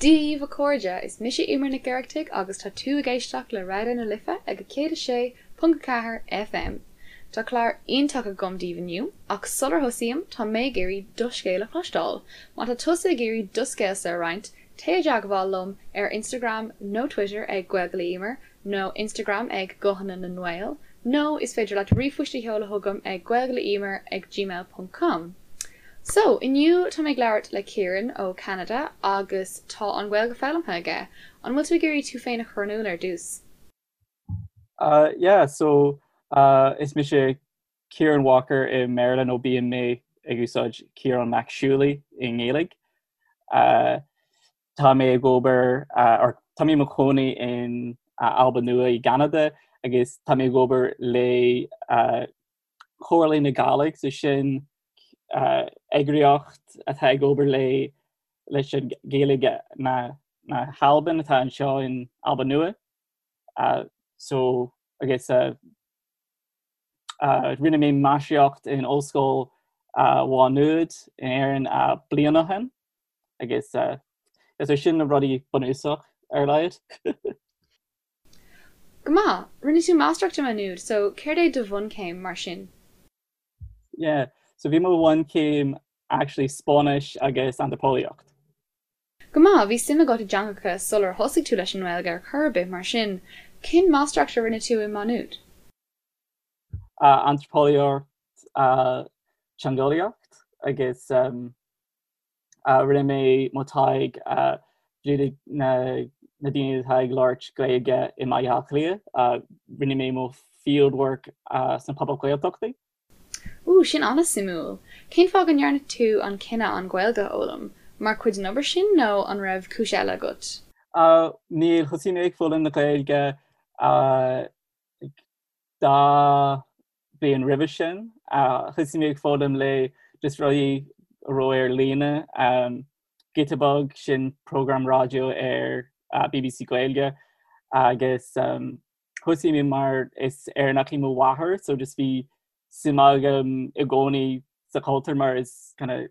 Dia dhaoibh a chairde, is mise Eimear Nic Oireachtaigh agus tá tú ag éisteacht le Raidió na Life ag 106.4 FM. Tá clár iontach agam daoibh inniu, ach sular thosaím, tá mé ag iarraidh do scéal a chloisteáil. Má tá tusa ag iarraidh do scéalsa a roinnt, téigh i dteagmháil liom ar Instagram nó Twitter ag Gaeilge le Eimear nó Instagram ag Guthanna na nGael nó is féidir leat ríomhphost a sheoladh chugam ag gaeilgeleeimear ag gmail ponc com. So, inniu tá mé ag labhairt le Ciaran ó Cheanada agus tá an Ghaeilge foghlamtha aige. An bhfuil tú ag iarraidh tú féin a chur in iúl ar dtús? Uh, yeah, so uh, is mise Ciaran Walker i mBéarla nó bíonn mé ag úsáid Ciarán Mac Siúlaí i nGaeilge. Uh, tá mé ag obair uh, or tá mé i mo chónaí in uh, Alba Nua i gCeanada agus tá mé ag obair le uh, Comhairle na Gàidhlig, so sin uh, eagraíocht atá ag obair le leis an Ghaeilge na, na hAlban atá anseo in Alba Nua. Uh, so agus uh, uh, rinne mé máistreacht in Ollscoil uh, Mhá Nuad in Éirinn uh, bliain ó shin agus uh, is sin na rudaí bunúsach ar a laghad. Go maith! Rinne tú máistreacht i Má Nuad, so céard é do bhunchéim mar sin? Yeah, so bhí mo bhunchéim actually Spáinnis agus Antraipeolaíocht. Go maith, bhí suim agat i dteangacha sular thosaigh tú leis an nGaeilge ar chor ar bith mar sin. Cén máistreacht a rinne tú i Má Nuad? Uh, Antraipeolaíocht, uh, teangeolaíocht agus um, Rinne mé mo taighde le na daoine atá ag labhairt Gaeilge i mBaile Átha Cliath. Rinne mé mo field work sna pobail Ghaeltachtaí. Ooh, sin an-suimiúil. Cén fáth go ndearna tú an cinneadh an Ghaeilge a fhoghlaim? Mar chuid den obair sin nó an raibh cúis eile agat? Níl, thosaigh mé ag foghlaim na Gaeilge dá bhliain roimhe sin. Thosaigh mé ag foghlaim le just rudaí a raibh ar líne. Giota Beag, sin program raidió ar BBC Gaeilge agus thosaigh mé mar is Éireannach í mo mháthair so just bhí suim agam i gcónaí sa chultúr mar is kind of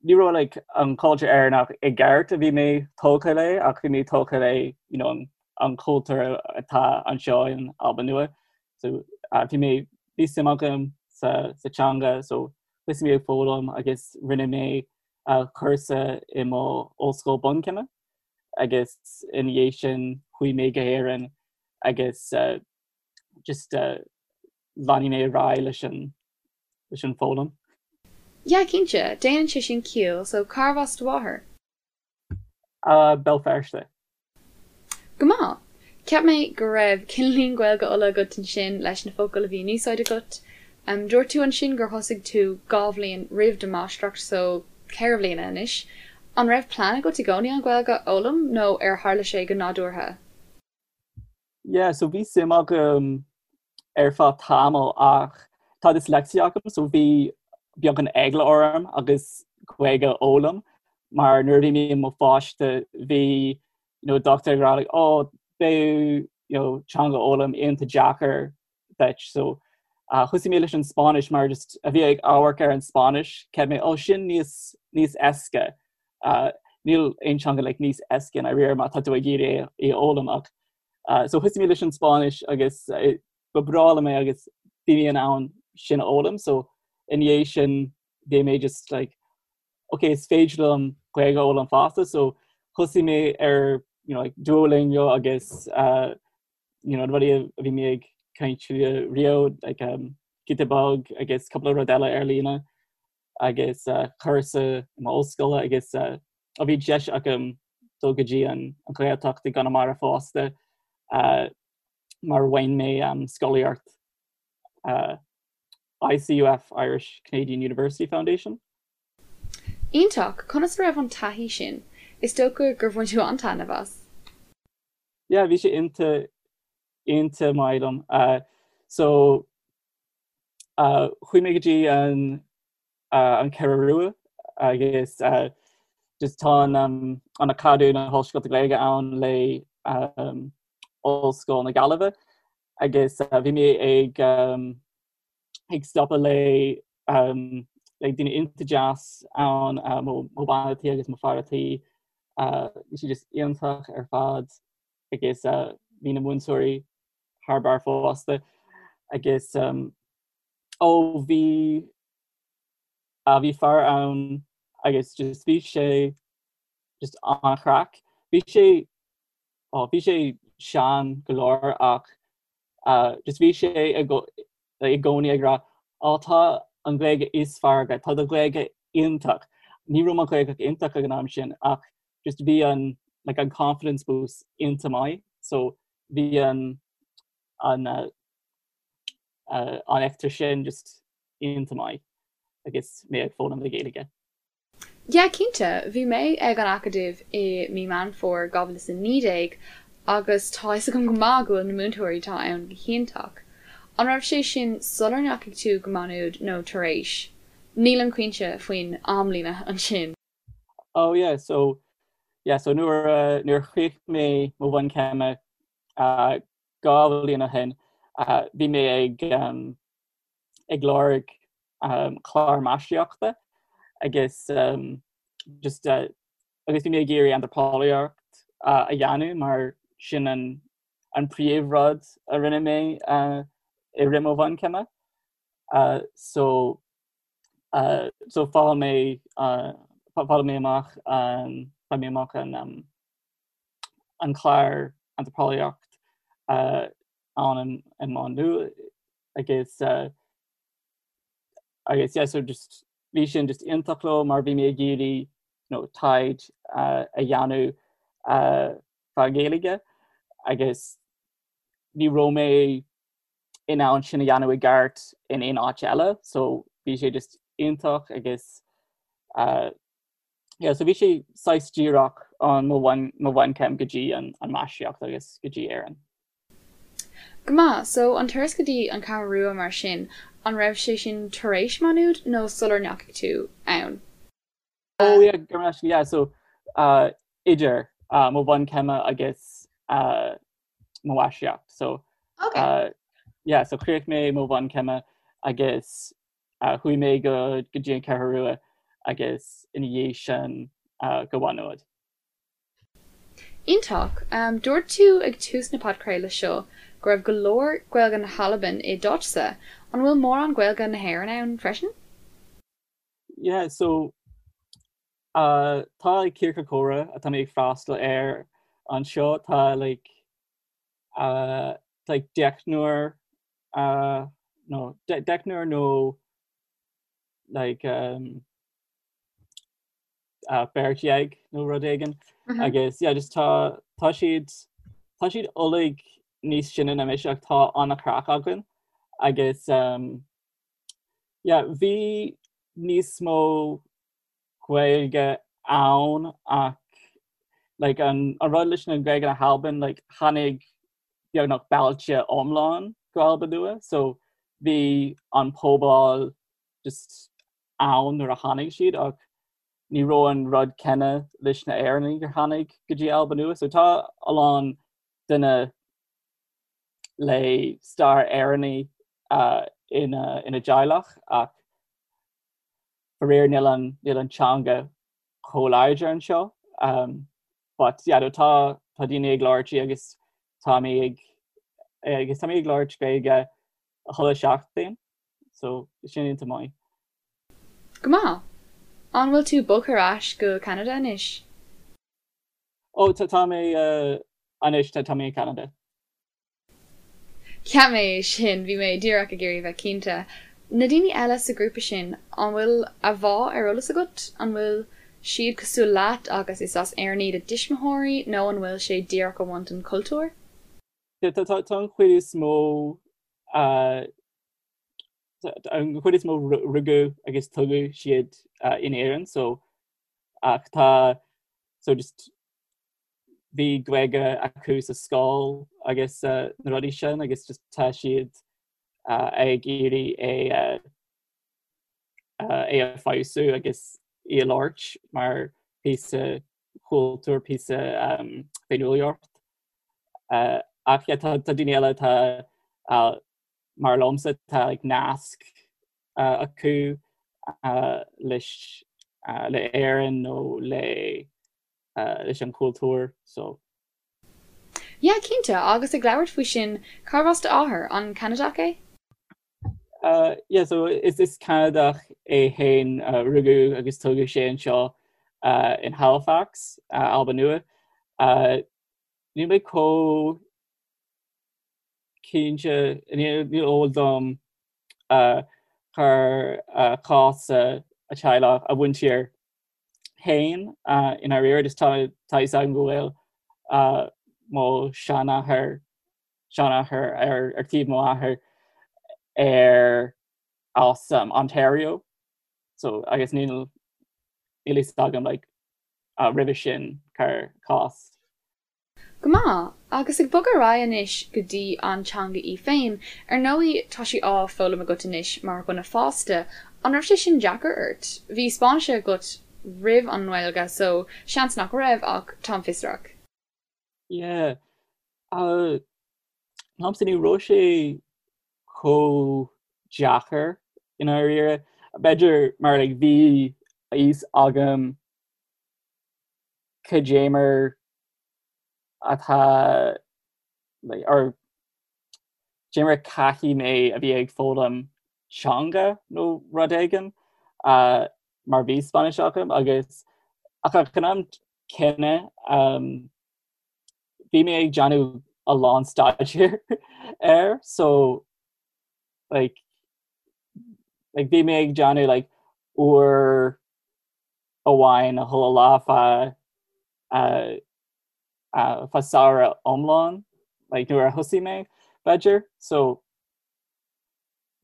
ní raibh like an cultúr Éireannach i gceart a bhí mé tógtha le ach bhí mé tógtha le you know, an, an cultúr atá anseo in Alba Nua. So uh, bhí mé bhí suim agam sa, sa teanga so thosaigh mé ag foghlaim agus rinne mé uh, cúrsa i mo ollscoil bunchéime agus ina dhiaidh sin chuaigh mé go hÉirinn agus uh, just uh, lean mé ar aghaidh leis an leis an foghlaim. Yeah, cinnte, déanann sé sin ciall, so cárbh as do mháthair? Uh, Béal Feirste. Go maith! Cheap mé go raibh cineáilín Gaeilge Uladh agat ansin leis na focail a bhí in úsáid agat. Um, dúirt tú ansin gur thosaigh tú dhá bhliain roimh do mháistreacht, so ceithre bliana anois. An raibh plean agat i gcónaí an Ghaeilge a fhoghlaim nó ar tharla sé go nádúrtha? Yeah, so bhí suim agam ar feadh tamall ach tá dyslexia agam so bhí beagán eagla orm agus Gaeilge a fhoghlaim mar nuair a bhí mé i mo pháiste bhí you know, dochtúir ag rá like, oh, beidh you know, teanga a fhoghlaim iontach deacair duit so uh, thosaigh mé leis an Spáinnis mar just a bhí ag amharc ar an Spáinnis cheap mé oh, sin níos níos éasca uh, níl aon teanga like, níos éasca i ndáiríre má tá tú ag iarraidh é a fhoghlaim ach uh, so thosaigh mé leis an Spáinnis agus uh, ba bhreá liom é agus bhí mé in ann sin a fhoghlaim so ina dhiaidh sin bhí mé just like okay is féidir liom Gaeilge a fhoghlaim fosta so thosaigh mé ar you know, like Duolingo agus uh, you know, rudaí a bhí mé ag caint riamh like, um, Giota Beag agus cúpla rud eile ar líne agus uh, cúrsa i m'ollscoil agus uh, ó bhí deis agam dul go dtí an, an Ghaeltacht i gConamara fosta uh, mar bhain mé um, scolaíocht uh, ICUF Irish Canadian University Foundation. Iontach! Conas a raibh an taithí sin? Is dócha gur bhain tú an-taitneamh as. Yeah, bhí sé iontach iontach maith liom. Uh, so uh, chuaigh mé go dtí an, uh, an Cheathrú Rua agus uh, just tá an, um, an Acadamh na hOllscoilte Gaeilge ann le um, Ollscoil na Gaillimhe agus uh, bhí mé ag um, ag stopadh le um, le daoine iontach deas ann uh, mo, mo bhean tí agus mo fear tí. Bhí sí just iontach ar fad agus bhí na múinteoirí thar barr fosta agus ó bhí bhí fear ann agus just bhí sé just an-chraic. Bhí sé ó bhí sé sean go leor ach just bhí sé i gcónaí ag rá Ó tá an Ghaeilge is fearr agat, tá do Ghaeilge iontach. Ní raibh mo Ghaeilge iontach ag an am sin ach just bhí an like an confidence boost iontach maith so bhí an an uh, uh, an eachtra sin just iontach maith agus mé ag foghlaim na Gaeilge. Yeah, cinnte. Bhí mé ag an Acadamh i mí Meán Fómhair 2019 agus tá fhios agam go maith go bhfuil na múinteoirí atá ann go hiontach. An raibh sé sin sular ndeachaigh tú go Maigh Nuad nó tar éis? Nílim cinnte faoin amlíne ansin. Oh yeah, so yeah, so nuair uh, nuair a chríoch mé mo bhunchéime uh, 2 bhliain ó shin, uh, bhí mé ag um, ag lorg clár máistreachta agus just agus bhí mé ag iarraidh antraipeolaíocht a dhéanamh mar sin an an príomhrud a rinne mé i rith mo bhunchéime. So so fuair mé fuair mé amach fuair mé amach an an clár antraipeolaíocht ann i Maigh Nuad agus agus yeah so just bhí sin just iontach liom mar bhí mé ag iarraidh you know, taighde a dhéanamh fá Ghaeilge agus ní raibh mé in ann sin a dhéanamh i gceart in aon áit eile so bhí sé just iontach agus uh, yeah, so bhí sé saghas díreach an mo bhunchéim go dtí an an máistreacht agus go dtí Éirinn. Go maith, so an turas go dtí an Cheathrú Rua mar sin, an raibh sé sin tar éis Maigh Nuad nó sular ndeachaigh tú ann? Oh yeah, go raibh yeah, so uh, idir uh, mo bhunchéime agus uh, mo mháistreacht. So okay. uh, yeah, so chríoch mé mo bhunchéime agus uh, chuaigh mé go go dtí an Cheathrú Rua agus ina dhiaidh sin uh, go Maigh Nuad. Iontach! Dúirt tú ag tús na podchraoladh seo go raibh go leor Gaeilge na hAlban i d'áitse. An bhfuil mórán Gaeilge na hÉireann ann freisin? Yeah, so uh, tá like, ciorcal comhrá atá mé ag freastal air anseo tá like, uh, like deichniúr uh, no, de deichniúr nó like, um, beirt dhéag nó rud éigin agus yeah, just tá tá siad tá siad uilig níos sine ná mise ach tá an-chraic againn agus um, yeah, bhí níos mó Gaeilge ann ach like, an, an rud leis na Gaeilge na hAlban like, tháinig beagnach bailte iomlán go Alba Nua so bhí an pobal just ann nuair a tháinig siad ach ní raibh an rud céanna leis na Éireannaigh gur tháinig go dtí Alba Nua. So tá a lán duine le stair Éireannaigh uh, ina, ina dteaghlach ach faraor níl an, níl an teanga chomh láidir anseo. Um, but yeah, no, tá, tá daoine ag labhairt í agus tá mé ag agus tá mé ag labhairt Gaeilge chuile seachtain. So sin iontach maith. Go maith. An bhfuil tú bogtha ar ais go Ceanada anois? Ó tá tá mé anois tá tá mé i Ceanada. Cheap mé é sin, bhí mé díreach ag iarraidh bheith cinnte. Na daoine eile sa ghrúpa sin, an bhfuil a bhfáth ar eolas agat? An bhfuil siad cosúil leat agus is as Éirinn iad a dtuismitheoirí nó an bhfuil sé díreach ag baint an cultúr? Tá tá tá an chuid is mó an chuid is mó rugadh agus tógadh siad in Éirinn so ach tá so just bhí Gaeilge acu sa scoil agus na rudaí sin agus just tá siad ag iarraidh é é a feabhsú agus í a labhairt mar píosa cultúr píosa féiniúlacht. Ach yeah, tá daoine eile tá mar liomsa tá like, nasc acu leis le Éirinn nó le. leis an chultúr so. Yeah, cinnte, agus ag labhairt faoi sin, cárbh as d'athair? An Ceanadach é? Yeah, so is is Ceanadach é féin, rugadh agus tógadh sé anseo in Halifax, Albain Nua. Níl mé chomh cinnte, níl eol dom cár chás a teaghlach, a mhuintir féin i ndáiríre, just tá tá fhios agam go bhfuil mo sheanathair, seanathair ar ar taobh mo athair ar as Ontario so agus níl níl fhios agam like roimhe sin cár chás. Go maith. Agus ag bogadh ar aghaidh anois go dtí an teanga í féin, ar ndóigh tá sí á foghlaim agat anois mar dhuine fásta, an raibh sé sin deacair ort? Bhí Spáinnis agat roimh an nGaeilge so seans nach raibh ach táim fiosrach. Yeah. Liomsa ní raibh sé chomh deacair i ndáiríre. B'fhéidir mar like bhí a fhios agam cad é mar atá like or cad é mar caithfidh mé a bhí ag foghlaim teanga nó rud éigin uh, mar bhí Spáinnis agam agus ach ag an am céanna um, bhí mé ag déanamh a lán staidéir air so like like bhí mé ag déanamh like uair amháin chuile lá feadh feadh samhradh iomlán like nuair a thosaigh mé b'fhéidir so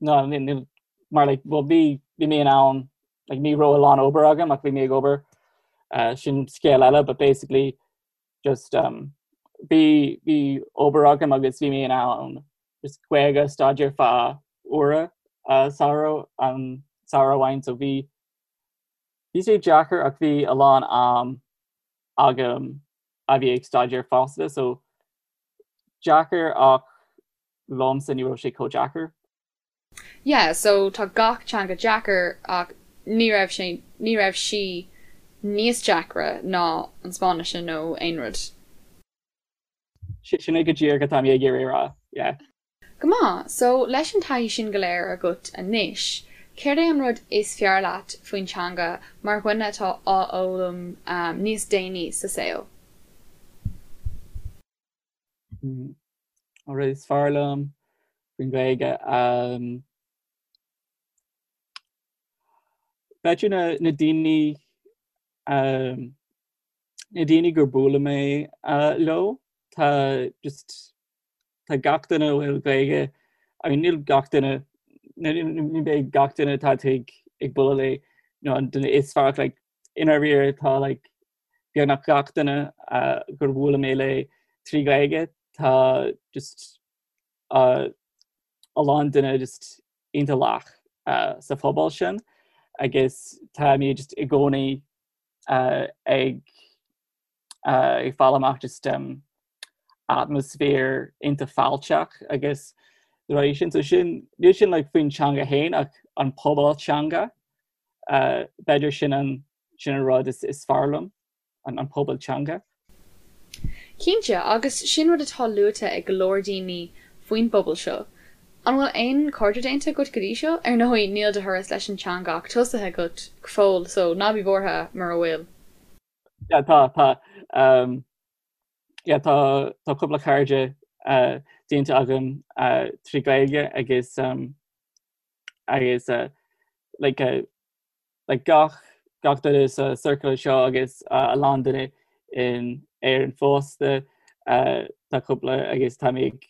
no níl mar like well bhí bhí mé in ann like ní raibh a lán obair agam ach bhí mé ag obair uh, sin scéal eile but basically just um, bhí bhí obair agam agus bhí mé in ann just Gaeilge staidéar feadh uaire uh, samhradh an samhradh amháin so bhí Bhí sé deacair ach bhí a lán am agam a bhí ag staidéar fosta so deacair ach liomsa ní raibh sé chomh deacair. Yeah so tá gach teanga deacair ach ní raibh sé, ní raibh sí níos deacra ná an Spáinnis nó aon rud. Sin é go díreach atá mé ag iarraidh a rá, yeah. Go maith! So, leis an taithí sin go léir agat anois, céard é an rud is fearr leat faoin teanga mar dhuine atá á fhoghlaim níos déanaí sa saol? An rud is fearr liom faoin Ghaeilge? B'fhéidir na daoine na daoine gur bualadh mé leo, tá just tá gach duine a bhfuil Gaeilge, I mean níl gach duine, ní bheidh gach duine atá tú ag ag bualadh le nó an duine is fearr like i ndáiríre tá like beagnach gach duine uh, gur bhuail mé le trí Ghaeilge tá just uh, a lán duine just iontach lách uh, sa phobal sin agus tá mé just i gcónaí uh, ag ag fáil amach just um, atmaisféar iontach fáilteach agus rudaí sin so sin níl sin like faoin teanga féin ach an pobal teanga uh, b'fhéidir sin an sin an rud is, is fearr liom an, an pobal teanga. Cinnte, agus sin rud atá luaite ag go leor daoine faoin bpobal seo. An bhfuil aon chairde déanta agat go dtí seo? Ar ndóigh, níl do thuras leis an teanga ach tosaithe agat go fóill, so ná bí buartha mura bhfuil. Yeah, tá, tá. Um, yeah, tá, tá cúpla cairde uh, déanta agam uh, trí Gaeilge agus um, agus uh, like, uh, like gach, gach duine sa circle seo agus uh, a lán duine in Éirinn fosta uh, tá cúpla agus tá mé ag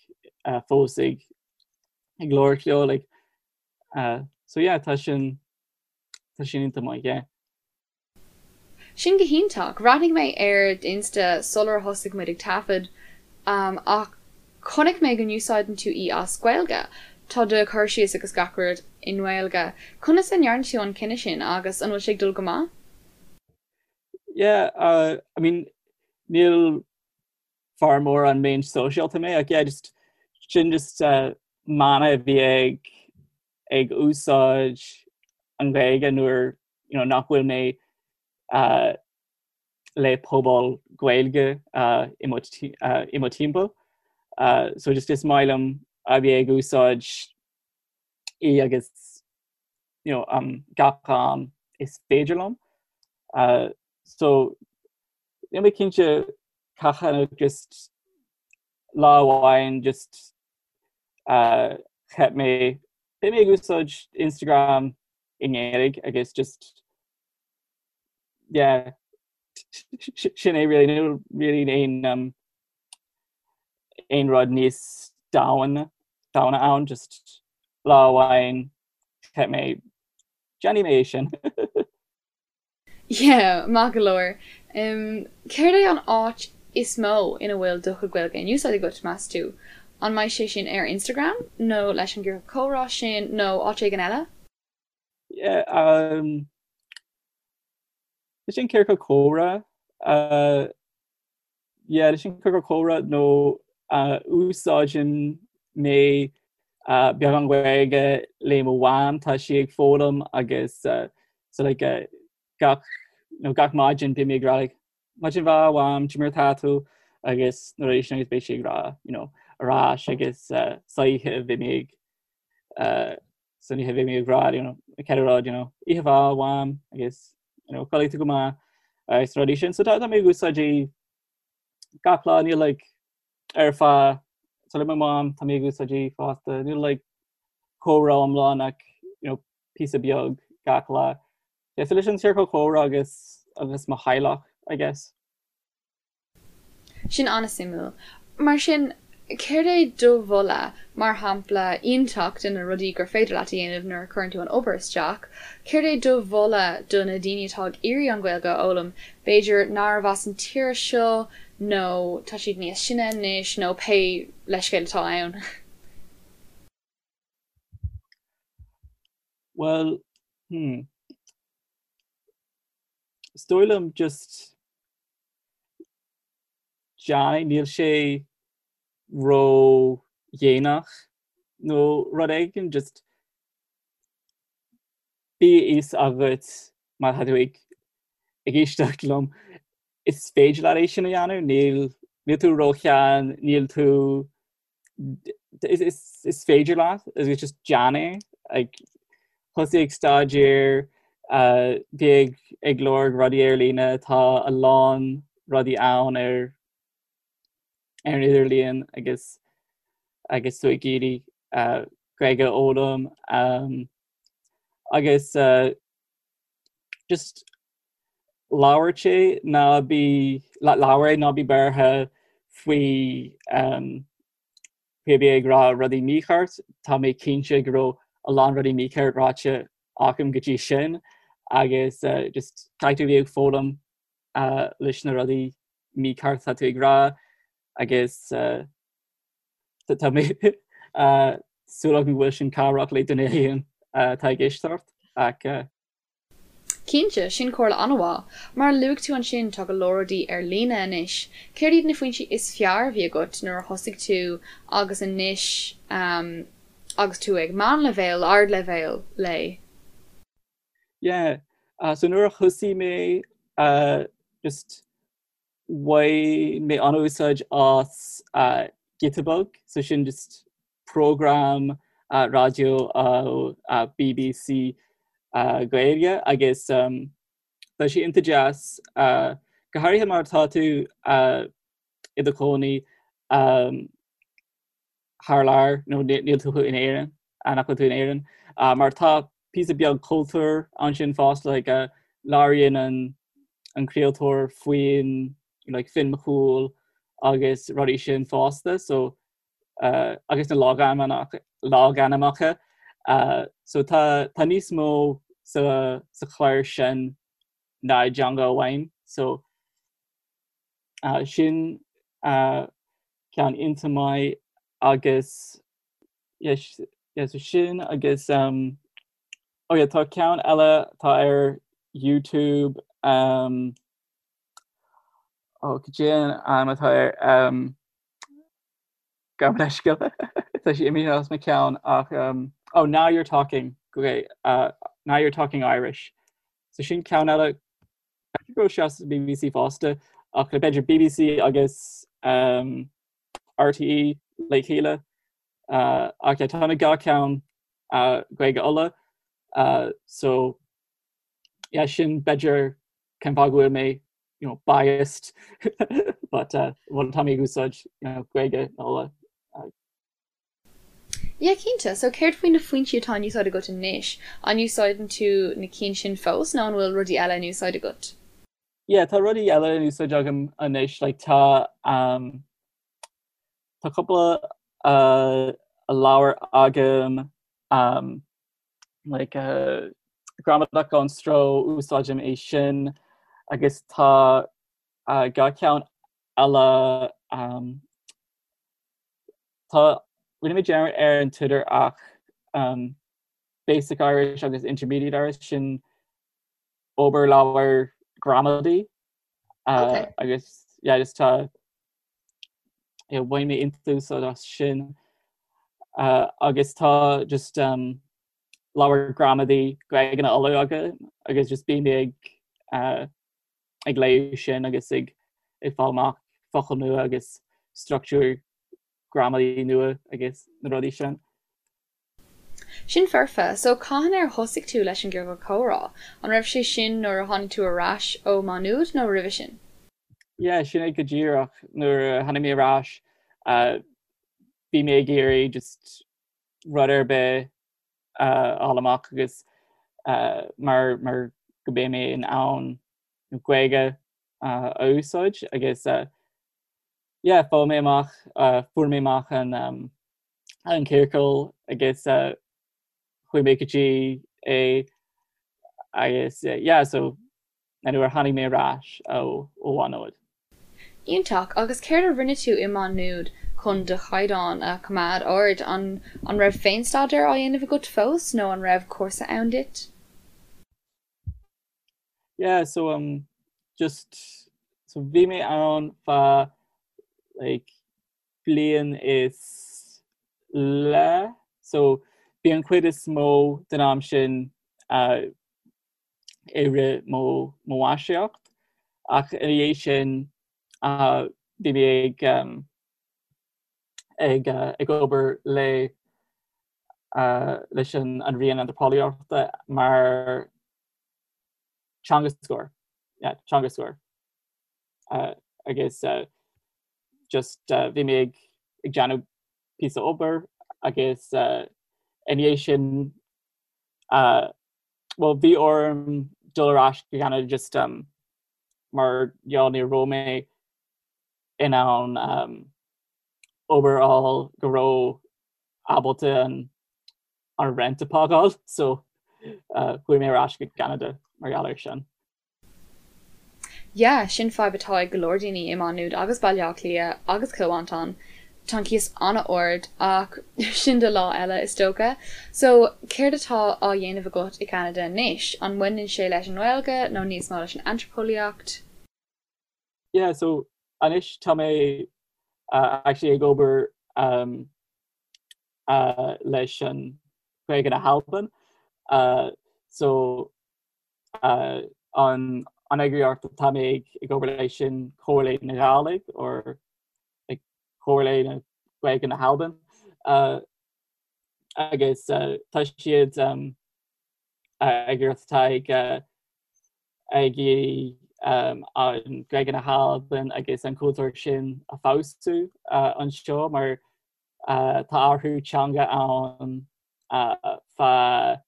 uh, fós ag ag labhairt leo like, uh, so yeah, tá sin tá sin iontach maith, yeah. Sin go hiontach. Bhreathnaigh mé ar d'Insta sular thosaigh muid ag taifead ach chonaic mé go n-úsáideann tú í as Gaeilge. Tá do chur síos agus gach rud i nGaeilge. Conas a ndearna tú an cinneadh sin agus an bhfuil sé ag dul go maith? Yeah, uh, I mean, níl fear mór an méan sóisialta mé ach yeah, just sin just uh, mana a bhí ag ag úsáid an Ghaeilge nuair you know, nach bhfuil mé uh, le pobal Gaeilge i mo i mo timpeall. So just is maith liom a bheith ag úsáid í agus you know, um, gach am is féidir liom. Uh, so níl mé cinnte cathain ach just lá amháin just uh, cheap mé beidh mé ag úsáid Instagram i nGaeilge agus just yeah sin é really níl really aon um, aon rud níos domhain domhaine ann just lá amháin cheap mé déanfaidh mé é sin. Yeah, maith go leor. Céard é an áit is mó ina bhfuil do chuid Gaeilge in úsáid agat, meas tú? An mbeidh sé sin ar Instagram, nó leis an gciorcal comhrá sin, nó áit éigin eile? Yeah, um, leis an ciorcal comhrá, uh, yeah, leis an ciorcal comhrá nó uh, úsáideann mé uh, beagán Gaeilge le mo mham, tá sí ag foghlaim agus uh, so like, uh, gach, nó gach maidin bím ag rá like, maidin mhaith a mham, cad é mar atá tú agus na rudaí sin agus beidh sí ag rá you know, ar ais agus uh, san oíche bím ag uh, san oíche bím ag rá you know, cén rud you know, oíche mhaith a mham agus you know, codlaigh tú go maith agus rudaí sin. So tá tá mé ag úsáid í gach lá níl like, ar feadh so le mo mham tá mé ag úsáid í fosta níl like, comhrá iomlán ach you know, píosa beag gach lá. Yeah, so leis an ciorcal comhrá agus agus mo theaghlach, I guess. Sin an-suimiúil. Mar sin, céard é do mholadh, mar shampla iontach de na rudaí gur féidir leat a dhéanamh nuair a chuireann tú an obair isteach, céard é do mholadh do na daoine atá ag iarraidh an Ghaeilge a fhoghlaim, b'fhéidir nárbh as an tír seo nó tá siad níos sine anois nó pé leithscéal atá ann? Bhuel, hmm. Is dóigh liom just déan é, níl sé ró-dhéanach nó rud éigin, just bíodh a fhios agat má tá tú ag ag éisteacht liom, is féidir leat é sin a dhéanamh, níl níl tú ró-shean, níl tú is féidir leat agus just déan é like, thosaigh ag staidéar uh, bí ag, ag lorg rudaí ar líne tá a lán rudaí ann ar ar an idirlíon agus agus tú ag iarraidh uh, Gaeilge a fhoghlaim um, agus uh, just labhairt é ná bí labhair é ná bí buartha faoi um, faoi a bheith ag rá rudaí mícheart, tá mé cinnte go raibh a lán rudaí mícheart ráite agam go dtí sin agus uh, just caithfidh tú bheith ag foghlaim uh, leis na rudaí mícheart atá tú ag rá agus uh, tá mé uh, súil agam go bhfuil sin cabhrach le duine éigin atá ag éisteacht ach uh, Cinnte, sin comhairle an-mhaith. Mar a luaigh tú ansin, tá go leor rudaí ar líne anois. Céard iad na foinsí is fearr a bhí agat nuair a thosaigh tú agus anois agus tú ag meánleibhéal, ardleibhéal léi? Yeah, so nuair a thosaigh mé just bhain mé an-úsáid as Giota Beag, so sin just program raidió ó BBC Gaeilge agus tá sé iontach deas, go háirithe mar tá tú i do chónaí thar lear nó níl tú in Éirinn, nach bhfuil tú in Éirinn, mar tá píosa beag cultúr ansin fosta, like labhraíonn an an craoltóir faoin like Finn Mac Cumhaill agus rudaí sin fosta, so uh, agus na logainmneacha, logainmneacha uh, so tá, tá níos mó sa, sa chlár sin ná i dteanga amháin, so uh, sin uh, ceann iontach maith agus yes, yes, so sin agus um, oh yeah, tá ceann eile tá ar YouTube um, oh, cad é an ainm atá air um, Gabh mo leithscéal tá sé imithe as mo cheann ach um, oh now you're talking okay, uh, now you're talking Irish so sin ceann eile. B'fhéidir go raibh sé sa BBC fosta ach le b'fhéidir BBC agus um, RTÉ le chéile uh, ach yeah, tá na dhá ceann uh, Gaeilge Uladh uh, so yeah, sin b'fhéidir cén fáth go bhfuil mé you know, biased but uh, well, tá mé ag úsáid you know, Gaeilge Uladh. Uh, Yeah, cinnte. So céard faoi na foinsí atá in úsáid agat anois? An úsáideann tú na cinn sin fós nó an bhfuil rudaí eile in úsáid agat? Yeah, tá rudaí eile in úsáid agam anois, like tá um, tá cúpla uh, leabhar agam um, like uh, Gramadach gan Stró úsáidim é sin agus tá uh, dhá ceann eile um, Tá, rinne mé dearmad ar an t-údar ach um, Basic Irish agus Intermediate Irish sin obair leabhar gramadaí uh, okay. agus yeah, just tá yeah, bhain mé an-úsáid as sin uh, agus tá just um, leabhar gramadaí Gaeilge na Uladh agam agus just bím ag uh, ag léamh sin agus ag ag fáil amach focail nua agus struchtúr gramadaí nua agus na rudaí sin. Sin foirfe. So cathain ar thosaigh tú leis an gciorcal comhrá? An raibh sé sin nuair a tháinig tú ar ais ó Má Nuad nó roimhe sin? Yeah, sin é go díreach. Nuair a tháinig mé ar ais, bhí mé ag iarraidh just rud ar bith a fháil amach agus mar mar go mbeidh mé in ann Gaeilge a úsáid agus yeah, fuair mé amach fuair mé amach an an ciorcal agus chuaigh mé go dtí é agus yeah, so nuair a tháinig mé ar ais ó Mhá Nuad. Iontach! Agus céard a rinne tú i Má Nuad chun do chaighdeán a choimeád ard? An an raibh féinstaidéar á dhéanamh agat fós nó an raibh cúrsa ann duit? Yeah, so um, just so bhí mé ann feadh like bliain is leith so bhí an chuid is mó den am sin uh, i rith mo mháistreacht ach ina dhiaidh sin bhí mé ag ag ag obair le leis an an Roinn Antraipeolaíochta mar teangascóir yeah, teangascóir agus just bhí mé ag ag déanamh píosa obair agus ina dhiaidh sin Bhuel, bhí orm dul ar ais go Ceanada just um, mar gheall ní raibh mé in ann um, obair a fháil go raibh ábalta an, an rent a phágáil, so uh, chuaigh mé ar ais go Ceanada mar gheall air sin. Yeah, sin fadhb atá ag go leor daoine i Má Nuad agus Baile Átha Cliath agus Cill Mhantáin. Tá an cíos an-ard ach sin do lá eile is dócha. So, céard atá á dhéanamh agat i gCeanada anois? An mbaineann sé leis an nGaeilge nó níos mó leis an antraipeolaíocht? Yeah, so anois tá mé uh, actually ag obair um, uh, leis an Ghaeilge na hAlban. Uh, so an eagraíocht atá mé ag obair leis sin Comhairle na Gàidhlig or Comhairle na Gaeilge na hAlban agus tá siad eagraíocht atá ag ag iarraidh an Ghaeilge na hAlban agus an cultúr sin a feabhsú anseo mar tá athrú teanga ann feadh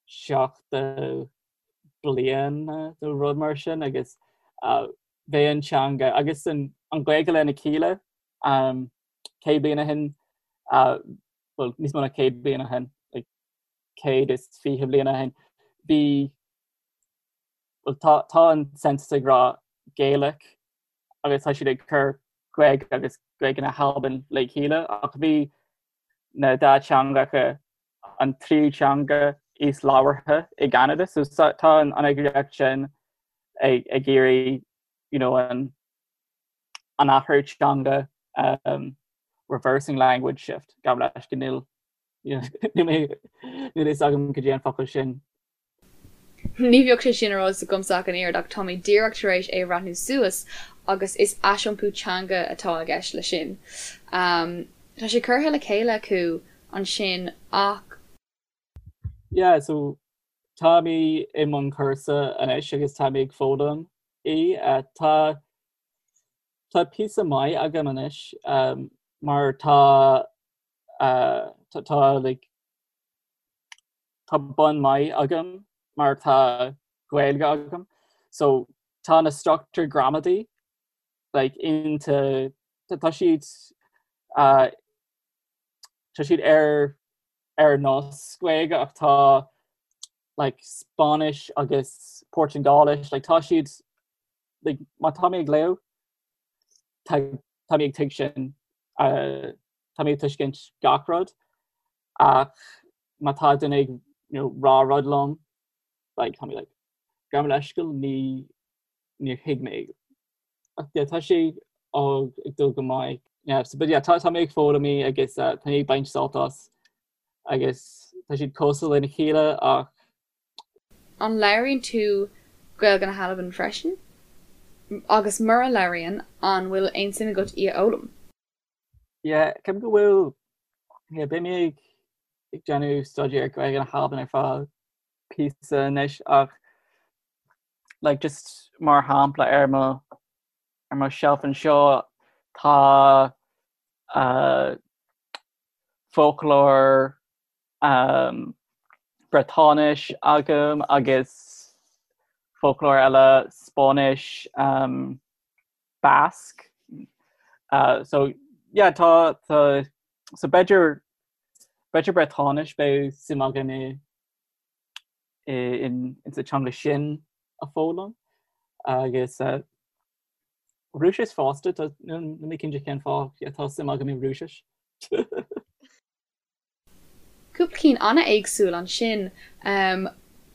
70 bliain nó rud mar sin agus bheith an teanga agus an Ghaeilge lena chéile 100 bliain ó shin, bhuel níos mó ná 100 bliain ó shin, like 120 bliain ó shin, bhí, bhuel tá tá an census ag rá Gaelic agus tá siad ag cur Gaeilge agus Gaeilge na hAlban le chéile ach bhí na dá teangacha an tríú teanga is labhartha i gCeanada. So tá an eagraíocht sin ag ag iarraidh you know, an an athrú teanga um, reversing language shift gabh leis go níl níl a fhios agam cad é an focal sin. Ní bheadh sé sin ar eolas agamsa ach an oiread ach tá mé díreach tar éis é a bhreathnú suas agus is aisiompú teanga atá i gceist leis sin. Tá sé curtha le chéile acu ansin ach. Yeah, so tá mé i mbun cúrsa anois agus tá mé ag foghlaim í. Tá tá píosa maith agam anois mar tá tá like tá bun maith agam mar tá Gaeilge agam so tá na struchtúir gramadaí like into tá siad uh, tá siad ar ar nós Gaeilge ach tá like Spáinnis agus Portaingéilis like tá siad like má tá mé ag léamh tá tá mé ag tuigsint uh, tá mé ag tuiscint gach rud ach má tá duine ag you know, rá rud liom like, tá mé like, gabh mo leithscéal ní níor thuig mé ach yeah, tá sé ag ag dul go maith. Yeah, so, but yeah, tá, tá mé ag foghlaim í agus uh, tá mé ag baint sult as agus tá siad cosúil lena chéile ach An labhraíonn tú Gaeilge na hAlban freisin? Agus mura labhraíonn, an bhfuil aon suim agat í a fhoghlaim? Yeah, ceapaim go bhfuil yeah, beidh mé ag ag déanamh staidéar Gaeilge na hAlban ar feadh píosa anois ach like just mar shampla ar mo ar mo shelf anseo tá uh, foclóir um, Briotáinis agam agus foclóir eile Spáinnis um, Basque. Uh, so yeah, tá tá so b'fhéidir b'fhéidir Briotáinis beidh suim agam i i in in sa teanga sin a foghlaim agus uh, Rúisis fosta tá níl mé cinnte cén fáth yeah, tá suim agam i Rúisis. Cúpla cinn an-éagsúil ansin.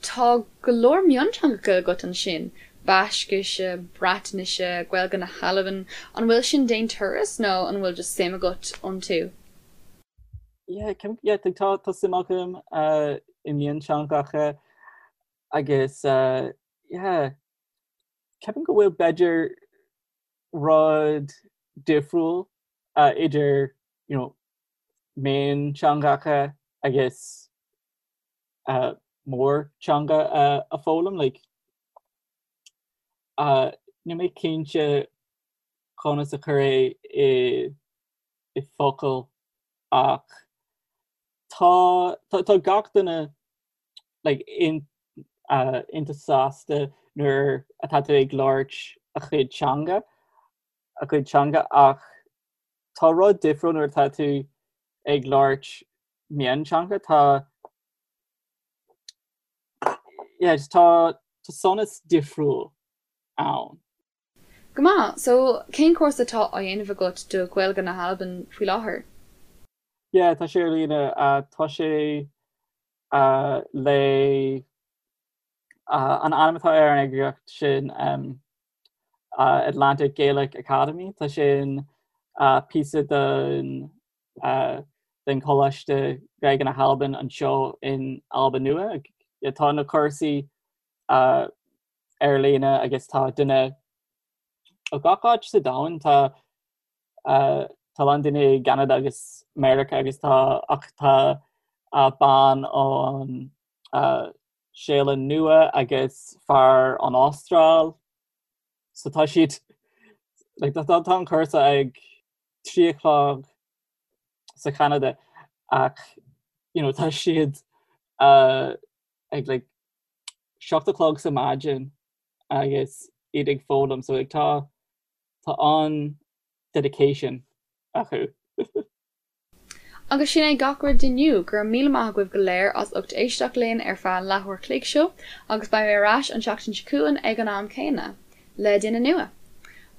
Tá go leor mionteangacha agat ansin, Baiscise, Breatnaise, Gaeilge na hAlban. An bhfuil sin d'aon turas nó an bhfuil just suim agat iontu? Yeah, yeah, tá tá suim agam uh, i mionteangacha agus uh, yeah, ceapaim go bhfuil b'fhéidir rud difriúil uh, idir you know, mionteangacha agus mórteanga a foghlaim like níl mé cinnte conas a chur é i i focail ach tá tá gach duine like in iontach sásta nuair atá tú ag labhairt a chuid teanga a chuid teanga ach tá rud difriúil nuair atá tú ag labhairt mionteanga tá yeah, just tá tá sonas difriúil ann. Go maith, so cén cúrsa atá á dhéanamh agat do Ghaeilge na hAlban faoi láthair? Yeah, tá sé ar líne. Uh, tá sé uh, le uh, an ainm atá ar an eagraíocht sin um, Atlantic Gaelic Academy. Tá sin píosa den den Choláiste Gaeilge na hAlban anseo in Albain Nua. Tá na cúrsaí ar líne agus tá duine ó gach áit sa domhan. Tá tá a lán daoine i gCeanada agus Meiriceá agus tá ach tá bean ón Séalainn Nua agus fear ón Astráil. So tá siad like, tá, tá an cúrsa ag 3 a chlog sa Cheanada ach you know, tá siad uh, ag like, 7 a chlog sa maidin agus iad ag foghlaim so like, tá tá an dedication acu. Agus sin é gach rud d'inniu. Go raibh míle maith agaibh go léir as ucht éisteacht linn ar feadh an leathuair chloig seo agus beidh mé ar ais an tseachtain seo chugainn ag an am céanna, le duine nua.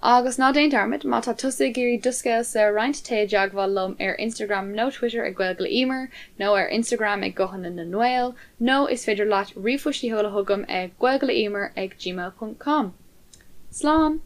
Agus ná déan dearmad, má tá tusa ag iarraidh do scéalsa a roinnt, téigh i dteagmháil liom ar Instagram nó Twitter ag Gaeilge le Emer nó ar Instagram ag Guthanna na nGael nó is féidir leat ríomhphost a sheoladh chugam ag gaeilgeleemer ag gmail ponc com. Slán!